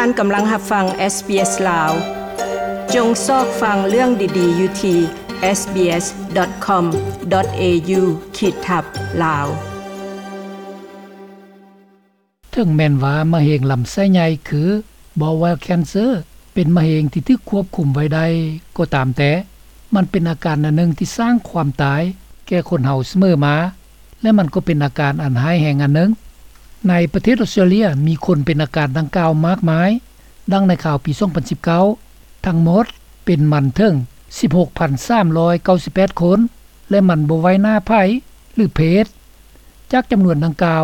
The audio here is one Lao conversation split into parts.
ທ່ານກຳລັງຮັບຟັງ ເອສບີເອສ ລາວ. ຈົ່ງຊອກຟັງເລື່ອງດີໆຢູ່ທີ່ ເອສບີເອສ ດອດ ຄອມ ດອດ ເອຢູ ຂີດທັບ ລາວ. ເຖິງແມ່ນວ່າມະເຮັງລຳໄສ້ໃຫຍ່ ຄື bowel cancer ເປັນມະເຮັງທີ່ຖືກຄວບຄຸມໄວ້ໄດ້ກໍຕາມແຕ່, ມັນເປັນອາການອັນໜຶ່ງທີ່ສ້າງຄວາມຕາຍແກ່ຄົນເຮົາສະເໝີມາ ແລະ ມັນກໍເປັນອາການອັນຮ້າຍແຮງອັນໜຶ່ງ. ໃນປະເທດອອສເຕຣເລຍ ມີຄົນເປັນອາການດັ່ງກ່າວມາກມາຍ, ດັ່ງໃນຂ່າວປີສອງພັນສິບເກົ້າ ທັງໝົດເປັນມັນເຖິງສິບຫົກພັນສາມຮ້ອຍເກົ້າສິບແປດຄົນ ແລະ ມັນບໍ່ໄຫວໜ້າໃຜ ຫຼື ເພດ. ຈາກຈຳນວນດັ່ງກ່າວ,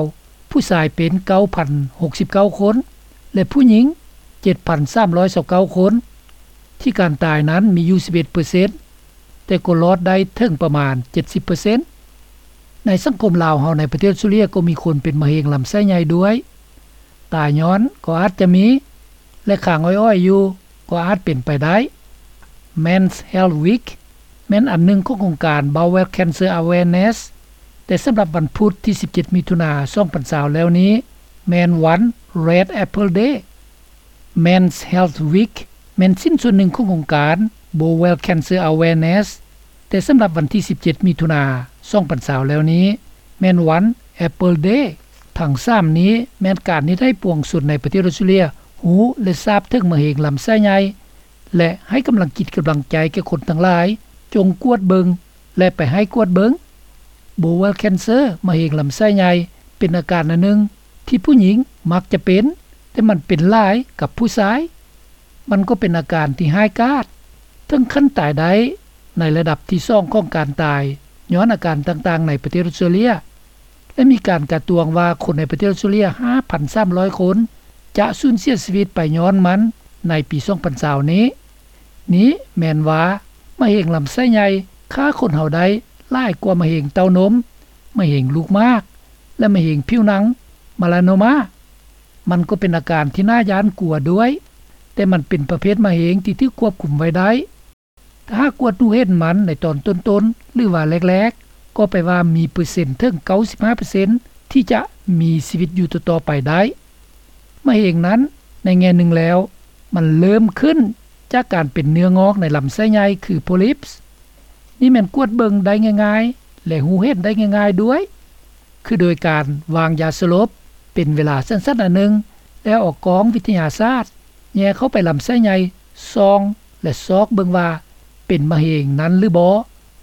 ຜູ້ຊາຍເປັນເກົ້າພັນຫົກສິບເກົ້າຄົນ ແລະ ຜູ້ຍິງເຈັດພັນສາມຮ້ອຍຊາວເກົ້າຄົນ, ທີ່ການຕາຍນັ້ນມີຢູ່ສິບເອັດເປີເຊັນ ແຕ່ກໍລອດໄດ້ເຖິງປະມານເຈັດສິບເປີເຊັນ. ໃນສັງຄົມລາວເຮົາໃນປະເທດອອສເຕຣເລຍກໍມີຄົນເປັນມະເຮັງລຳໄສ້ໃຫຍ່ດ້ວຍ. ຕາຍຍ້ອນກໍອາດຈະມີ ແລະ ຄ້າງອ້ອຍໆຢູ່ກໍອາດເປັນໄປໄດ້. Men's Health Week ແມ່ນອັນໜຶ່ງຂອງໂຄງການ Bowel Cancer Awareness, ແຕ່ສຳລັບວັນພຸດທີສິບເຈັດ ມິຖຸນາ ສອງພັນຊາວແລ້ວນີ້ ແມ່ນວັນ Red Apple Day. Men's Health Week ແມ່ນຊິ້ນສ່ວນໜຶ່ງຂອງໂຄງການ Bowel Cancer Awareness, ແຕ່ສຳລັບວັນທີສິບເຈັດ ມິຖຸນາ ສອງພັນຊາວແລ້ວນີ້ ແມ່ນວັນ Apple Day. ທັງສາມນີ້ແມ່ນການເຮັດໃຫ້ປວງຊົນໃນປະເທດອອສເຕຣເລຍຮູ້ ແລະ ຊາບເຖິງມະເຮັງລຳໄສ້ໃຫຍ່ ແລະ ໃຫ້ກຳລັງຈິດກຳລັງໃຈແກ່ຄົນທັງຫຼາຍ ຈົ່ງກວດເບິ່ງ ແລະ ໄປໃຫ້ກວດເບິ່ງ. Bowel cancer ມະເຮັງລຳໄສ້ໃຫຍ່ ເປັນອາການອັນໜຶ່ງທີ່ຜູ້ຍິງມັກຈະເປັນ, ແຕ່ມັນເປັນຫຼາຍກັບຜູ້ຊາຍ. ມັນກໍເປັນອາການທີ່ຮ້າຍກາດ ເຖິງຂັ້ນຕາຍໄດ້ໃນລະດັບທີສອງຂອງການຕາຍຍ້ອນອາການຕ່າງໆໃນປະເທດອອສເຕຣເລຍ ແລະ ມີການກາດຕວງວ່າຄົນໃນປະເທດອອສເຕຣເລຍຫ້າພັນສາມຮ້ອຍຄົນ ຈະສູນເສຍຊີວິດໄປຍ້ອນມັນໃນປີສອງພັນຊາວນີ້. ນີ້ແມ່ນວ່າມະເຮັງລຳໄສ້ໃຫຍ່ຂ້າຄົນເຮົາໄດ້ຫຼາຍກວ່າມະເຮັງເຕົ້ານົມ, ມະເຮັງລູກໝາກ ແລະ ມະເຮັງຜິວໜັງ melanoma. ມັນກໍເປັນອາການທີ່ໜ້າຢ້ານກົວດ້ວຍ, ແຕ່ມັນເປັນປະເພດມະເຮັງທີ່ຖືກຄວບຄຸມໄວ້ໄດ້. ຖ້າຫາກກວດຮູ້ເຫັນມັນໃນຕອນຕົ້ນໆ ຫຼືວ່າແລກໆ ກໍແປວ່າມີເປີເຊັນເຖິງເກົ້າສິບຫ້າເປີເຊັນ ທີ່ຈະມີຊີວິດຢູ່ຕໍ່ໆໄປໄດ້. ມະເຮັງນັ້ນໃນແງ່ໜຶ່ງແລ້ວ ມັນເລີ່ມຂຶ້ນຈາກການເປັນເນື້ອງອກໃນລຳໄສ້ໃຫຍ່ ຄື polyps. ນີ້ແມ່ນກວດເບິ່ງໄດ້ງ່າຍໆ ແລະ ຮູ້ເຫັນໄດ້ງ່າຍໆດ້ວຍ ຄືໂດຍການວາງຢາສະຫຼົບເປັນເວລາສັ້ນໆອັນໜຶ່ງ ແລ້ວເອົາກ້ອງວິທະຍາສາດແຍ່ເຂົ້າໄປລຳໄສ້ໃຫຍ່ ສ່ອງ ແລະ ຊອກເບິ່ງວ່າເປັນມະເຮັງນັ້ນຫຼືບໍ່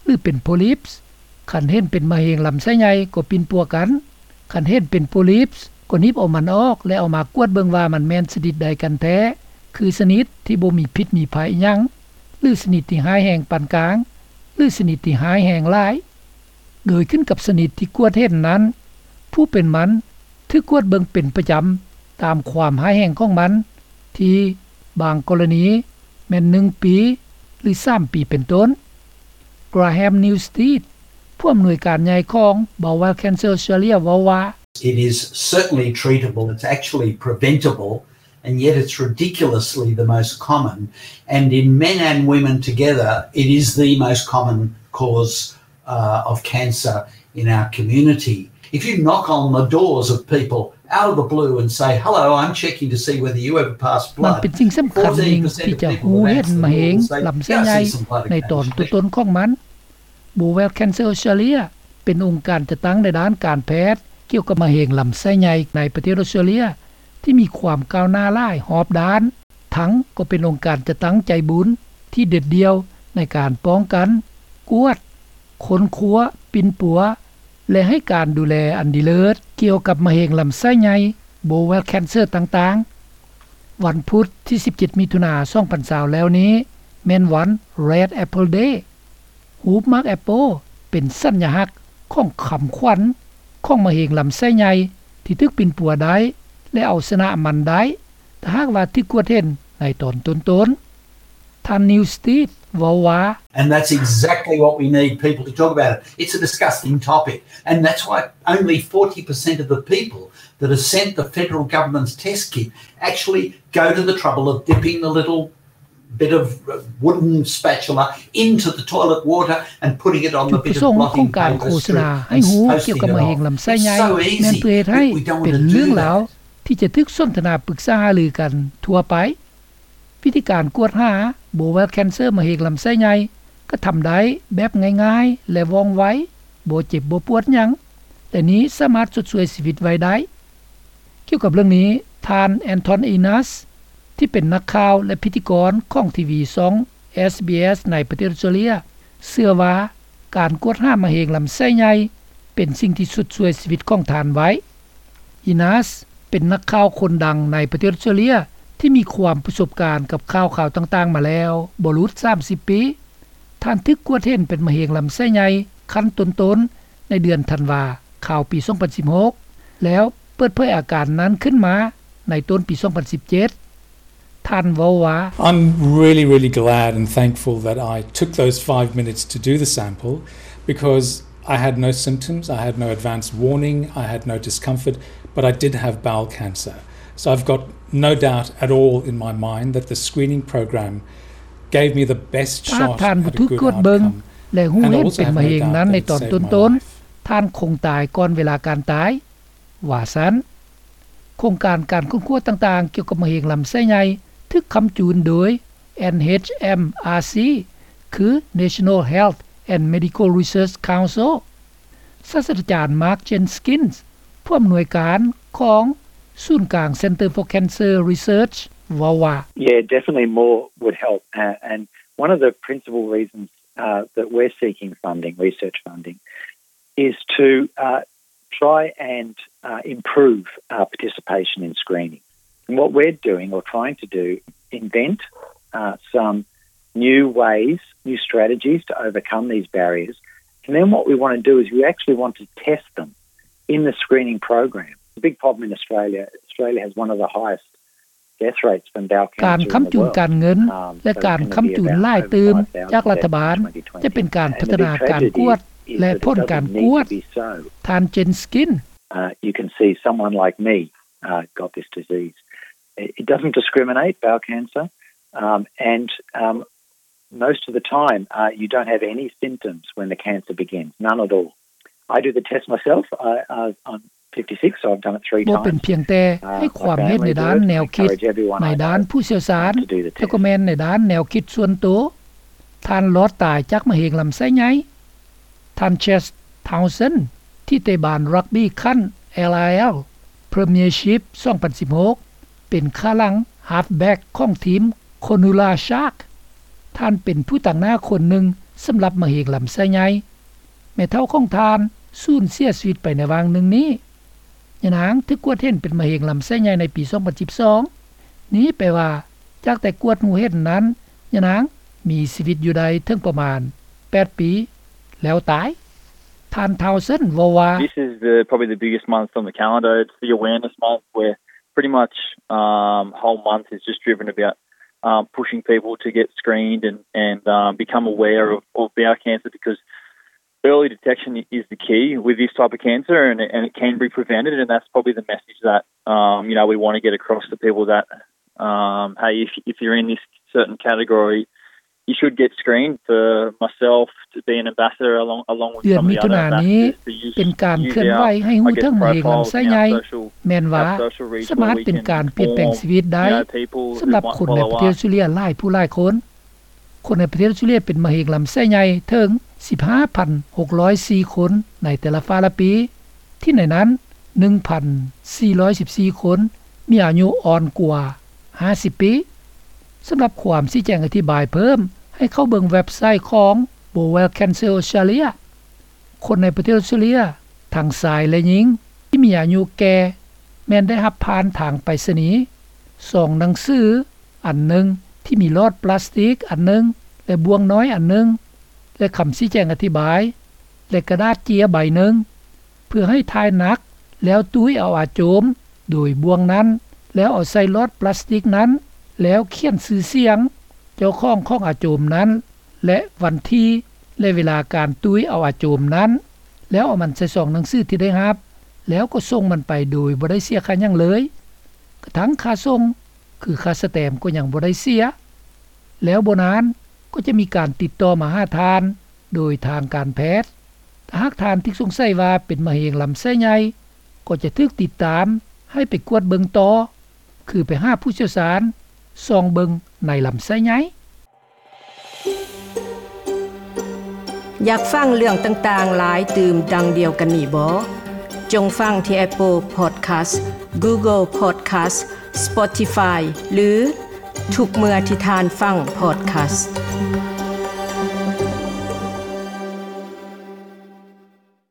ຫຼື ເປັນ polyps. ຄັນເຫັນເປັນມະເຮັງລຳໄສ້ໃຫຍ່ກໍປິ່ນປົວກັນ, ຄັນເຫັນເປັນ polyps ກໍໜີບເອົາມັນອອກ ແລະ ເອົາມາກວດເບິ່ງວ່າມັນແມ່ນຊະນິດໃດກັນແທ້, ຄືຊະນິດທີ່ບໍ່ມີພິດມີໄພຫຍັງ ຫຼື ຊະນິດທີ່ຮ້າຍແຮງປານກາງ ຫຼື ຊະນິດທີ່ຮ້າຍແຮງຫຼາຍ. ໂດຍຂຶ້ນກັບຊະນິດທີ່ກວດເຫັນນັ້ນ, ຜູ້ເປັນມັນຖືກກວດເບິ່ງເປັນປະຈຳຕາມຄວາມຮ້າຍແຮງຂອງມັນ, ທີ່ບາງກໍລະນີແມ່ນໜຶ່ງປີ ຫຼື ສາມປີເປັນຕົ້ນ. Graham Newstead ຜູ້ອຳນວຍການໃຫຍ່ຂອງ Bowel Cancer Australia ເວົ້າວ່າ, It is certainly treatable, it's actually preventable, and yet it's ridiculously the most common. And in men and women together, it is the most common cause uh, of cancer in our community. If you knock on the doors of people out of the blue and say, "Hello, I'm checking to see whether you ever pass blood," ມັນເປັນສິ່ງສຳຄັນໜຶ່ງທີ່ຈະຮູ້ເຫັນມະເຮັງລຳໄສ້ໃຫຍ່ໃນຕອນຕົ້ນໆຂອງມັນ. Bowel Cancer Australia ເປັນອົງການຈັດຕັ້ງໃນດ້ານການແພດກ່ຽວກັບມະເຮັງລຳໄສ້ໃຫຍ່ໃນປະເທດອອສເຕຣເລຍ ທີ່ມີຄວາມກ້າວໜ້າຫຼາຍຮອບດ້ານ, ທັງກໍເປັນອົງການຈັດຕັ້ງໃຈບຸນທີ່ເດັດດ່ຽວໃນການປ້ອງກັນ, ກວດ, ຄົ້ນຄວ້າ, ປິ່ນປົວ ແລະ ໃຫ້ການດູແລອັນດີເລີດກ່ຽວກັບມະເຮັງລຳໄສ້ໃຫຍ່, bowel cancer ຕ່າງໆ. ວັນພຸດທີສິບເຈັດ ມິຖຸນາ ສອງພັນຊາວແລ້ວນີ້ ແມ່ນວັນ Red Apple Day. ຮູບໝາກແອັບເປິ້ນເປັນສັນຍະລັກຂອງຄຳຂວັນຂອງມະເຮັງລຳໄສ້ໃຫຍ່ທີ່ຖືກປິ່ນປົວໄດ້ ແລະ ເອົາຊະນະມັນໄດ້ ຖ້າຫາກວ່າຖືກກວດເຫັນໃນຕອນຕົ້ນໆ. ທ່ານ Newstead ເວົ້າວ່າ, And that's exactly what we need people to talk about it. It's a disgusting topic, and that's why only forty percent of the people that are sent the federal government's test kit actually go to the trouble of dipping the little bit of wooden spatula into the toilet water and putting it on the bit of blotting paper strip and posting it off. ຈຸດປະສົງຂອງການໂຄສະນາໃຫ້ຮູ້ກ່ຽວກັບມະເຮັງລຳໄສ້ໃຫຍ່ ແມ່ນເພື່ອເຮັດໃຫ້ເປັນເລື່ອງລາວ ທີ່ຈະຖືກສົນທະນາປຶກສາຫາລືກັນທົ່ວໄປ. ວິທີການກວດຫາ bowel cancer ມະເຮັງລຳໄສ້ໃຫຍ່ ກໍທຳໄດ້ແບບງ່າຍໆ ແລະ ວ່ອງໄວ, ບໍ່ເຈັບບໍ່ປວດຫຍັງ ແລະ ນີ້ສາມາດຊົດຊ່ວຍຊີວິດໄວ້ໄດ້. ກ່ຽວກັບເລື່ອງນີ້, ທ່ານ Anton Inas ທີ່ເປັນນັກຂ່າວ ແລະ ພິທີກອນຂອງທີວີຊ່ອງ ເອສບີເອສ ໃນປະເທດອອສເຕຣເລຍ ເຊື່ອວ່າການກວດຫາມະເຮັງລຳໄສ້ໃຫຍ່ ເປັນສິ່ງທີ່ຊຸດຊ່ວຍຊີວິດຂອງທ່ານໄວ້. Inas ເປັນນັກຂ່າວຄົນດັງໃນປະເທດອອສເຕຣເລຍ ທີ່ມີຄວາມປະສົບການກັບຂ່າວຄາວຕ່າງໆມາແລ້ວບໍ່ຫຼຸດສາມສິບປີ. ທ່ານຖືກກວດເຫັນເປັນມະເຮັງລຳໄສ້ໃຫຍ່ຂັ້ນຕົ້ນໆ ໃນເດືອນທັນວາ ຄາວປີສອງພັນສິບຫົກ ແລ້ວເປີດເຜີຍອາການນັ້ນຂຶ້ນມາໃນຕົ້ນປີສອງພັນສິບເຈັດ. ທ່ານເວົ້າວ່າ I'm really, really glad and thankful that I took those five minutes to do the sample, because I had no symptoms, I had no advance warning, I had no discomfort, but I did have bowel cancer. So I've got no doubt at all in my mind that the screening program gave me the best shot at a good outcome. ຖ້າທ່ານບໍ່ຖືກກວດເບິ່ງ ແລະ ຮູ້ເຫັນເປັນມະເຮັງນັ້ນໃນຕອນຕົ້ນໆ, ທ່ານຄົງຕາຍກ່ອນເວລາການຕາຍ, ວ່າຊັ້ນ. ໂຄງການການຄົ້ນຄວ້າຕ່າງໆກ່ຽວກັບມະເຮັງລຳໄສ້ໃຫຍ່ ຖືກຄ້ຳຈູນໂດຍ ເອັນເອັດເອັມອາຣ໌ຊີ ຄື National Health and Medical Research Council. ສາດສະດາຈານ Mark Jenkins ຜູ້ອຳນວຍການຂອງສູນກາງ Center for Cancer Research ເວົ້າວ່າ Yeah, definitely more would help. Uh, and one of the principal reasons, uh, that we're seeking funding, research funding, is to, uh, try and, uh, improve, uh, participation in screening. And what we're doing or trying to do, invent, uh, some new ways, new strategies to overcome these barriers. And then what we want to do is we actually want to test them in the screening program. The big problem in Australia, Australia has one of the highest death rates from bowel cancer in the world. ການຄ້ຳຈູນການເງິນ ແລະ ການຄ້ຳຈູນຫຼາຍຕື່ມຈາກລັດຖະບານ ຈະເປັນການພັດທະນາການກວດ ແລະ ຜົນການກວດ. ທ່ານ Jenkins, uh, you can see someone like me, uh, got this disease. It doesn't discriminate, bowel cancer, um, and, um, most of the time, uh, you don't have any symptoms when the cancer begins, none at all. I do the test myself. I, I, I'm fifty-six, so I've done it three times. ບໍ່ເປັນພຽງແຕ່ໃຫ້ຄວາມເຫັນໃນດ້ານແນວຄິດ ໃນດ້ານຜູ້ຊ່ຽວຊານ, ແຕ່ກໍແມ່ນໃນດ້ານແນວຄິດສ່ວນໂຕ. ທ່ານລອດຕາຍຈາກມະເຮັງລຳໄສ້ໃຫຍ່. ທ່ານ Chas Townsend ທີ່ເຕະບານຣັກບີ້ຂັ້ນ LIL Premiership ສອງພັນສິບຫົກ ເປັນຂ້າຫຼັງ halfback ຂອງທີມ Cronulla Shark. ທ່ານເປັນຜູ້ຕາງໜ້າຄົນໜຶ່ງສຳລັບມະເຮັງລຳໄສ້ໃຫຍ່. ແມ່ເຖົ້າຂອງທ່ານສູນເສຍຊີວິດໄປໃນຫວ່າງໜຶ່ງນີ້. ຍານາງຖືກກວດເຫັນເປັນມະເຮັງລຳໄສ້ໃຫຍ່ໃນປີສອງພັນສິບສອງ. ນີ້ແປວ່າ ຈາກແຕ່ກວດຮູ້ເຫັນນັ້ນ, ຍານາງມີຊີວິດຢູ່ໄດ້ເຖິງປະມານແປດປີ ແລ້ວຕາຍ. ທ່ານ Townsend ເວົ້າວ່າ This is the, probably the biggest month on the calendar. It's the awareness month where pretty much, um, whole month is just driven about, um, pushing people to get screened and, and, um, become aware of, of bowel cancer, because early detection is the key with this type of cancer, and, and it can be prevented, and that's probably the message that, um, you know, we want to get across to people that, um, hey, if, if you're in this certain category, you should get screened. For myself to be an ambassador along, along with some of the other ambassadors, to use, use our, I guess, profile in our social, our social reach where we can inform, you know, people who might follow us. ເດືອນມິຖຸນານີ້ເປັນການເຄື່ອນໄຫວໃຫ້ຮູ້ເຖິງມະເຮັງລຳໄສ້ໃຫຍ່ ແມ່ນວ່າ ສາມາດເປັນການປ່ຽນແປງຊີວິດໄດ້. ສຳລັບຄົນໃນປະເທດອອສເຕຣເລຍຫຼາຍຜູ້ຫຼາຍຄົນ, ຄົນໃນປະເທດອອສເຕຣເລຍເປັນມະເຮັງລຳໄສ້ໃຫຍ່ເຖິງສິບຫ້າພັນຫົກຮ້ອຍສີ່ຄົນໃນແຕ່ລະຟ້າລະປີ, ທີ່ໃນນັ້ນໜຶ່ງພັນສີ່ຮ້ອຍສິບສີ່ຄົນມີອາຍຸອ່ອນກວ່າຫ້າສິບປີ. ສຳລັບຄວາມຊີ້ແຈງອະທິບາຍເພີ່ມ, ໃຫ້ເຂົ້າເບິ່ງເວັບໄຊຂອງ Bowel Cancer Australia. ຄົນໃນປະເທດອອສເຕຣເລຍ ທັງຊາຍ ແລະ ຍິງ ທີ່ມີອາຍຸແກ່ ແມ່ນໄດ້ຮັບຜ່ານທາງໄປສະນີ ຊອງໜັງສືອັນໜຶ່ງທີ່ມີຫຼອດປລາສຕິກອັນໜຶ່ງ ແລະ ບ່ວງນ້ອຍອັນໜຶ່ງ ແລະ ຄຳຊີ້ແຈງອະທິບາຍ ແລະ ກະດາດເຈ້ຍໃບໜຶ່ງ ເພື່ອໃຫ້ຖ່າຍໜັກ ແລ້ວຕຸ້ຍເອົາອາໂຈມໂດຍບ່ວງນັ້ນ ແລ້ວເອົາໃສ່ຫຼອດປລາສຕິກນັ້ນ ແລ້ວຂຽນຊື່ສຽງເຈົ້າຂອງຂອງອາໂຈມນັ້ນ ແລະ ວັນທີ ແລະ ເວລາການຕຸ້ຍເອົາອາໂຈມນັ້ນ ແລ້ວເອົາມັນໃສ່ຊອງໜັງສືທີ່ໄດ້ຮັບ ແລ້ວກໍສົ່ງມັນໄປໂດຍບໍ່ໄດ້ເສຍຄ່າຫຍັງເລີຍ. ກະທັ່ງຄ່າສົ່ງ ຄືຄ່າສະແຕມກໍຍັງບໍ່ໄດ້ເສຍ. ແລ້ວບໍ່ນານກໍຈະມີການຕິດຕໍ່ມາຫາທ່ານໂດຍທາງການແພດ. ຖ້າຫາກທ່ານຖືກສົງໄສວ່າເປັນມະເຮັງລຳໄສ້ໃຫຍ່ ກໍຈະຖືກຕິດຕາມ ໃຫ້ໄປກວດເບິ່ງຕໍ່ ຄືໄປຫາຜູ້ຊ່ຽວຊານ ສ່ອງເບິ່ງໃນລຳໄສ້ໃຫຍ່. ຢາກຟັງເລື່ອງຕ່າງໆຫຼາຍຕື່ມດັ່ງດຽວກັນນີ້ບໍ? ຈົ່ງຟັງທີ່ Apple Podcast, Google Podcast, Spotify ຫຼື ທຸກເມື່ອທີ່ທ່ານຟັງ podcast.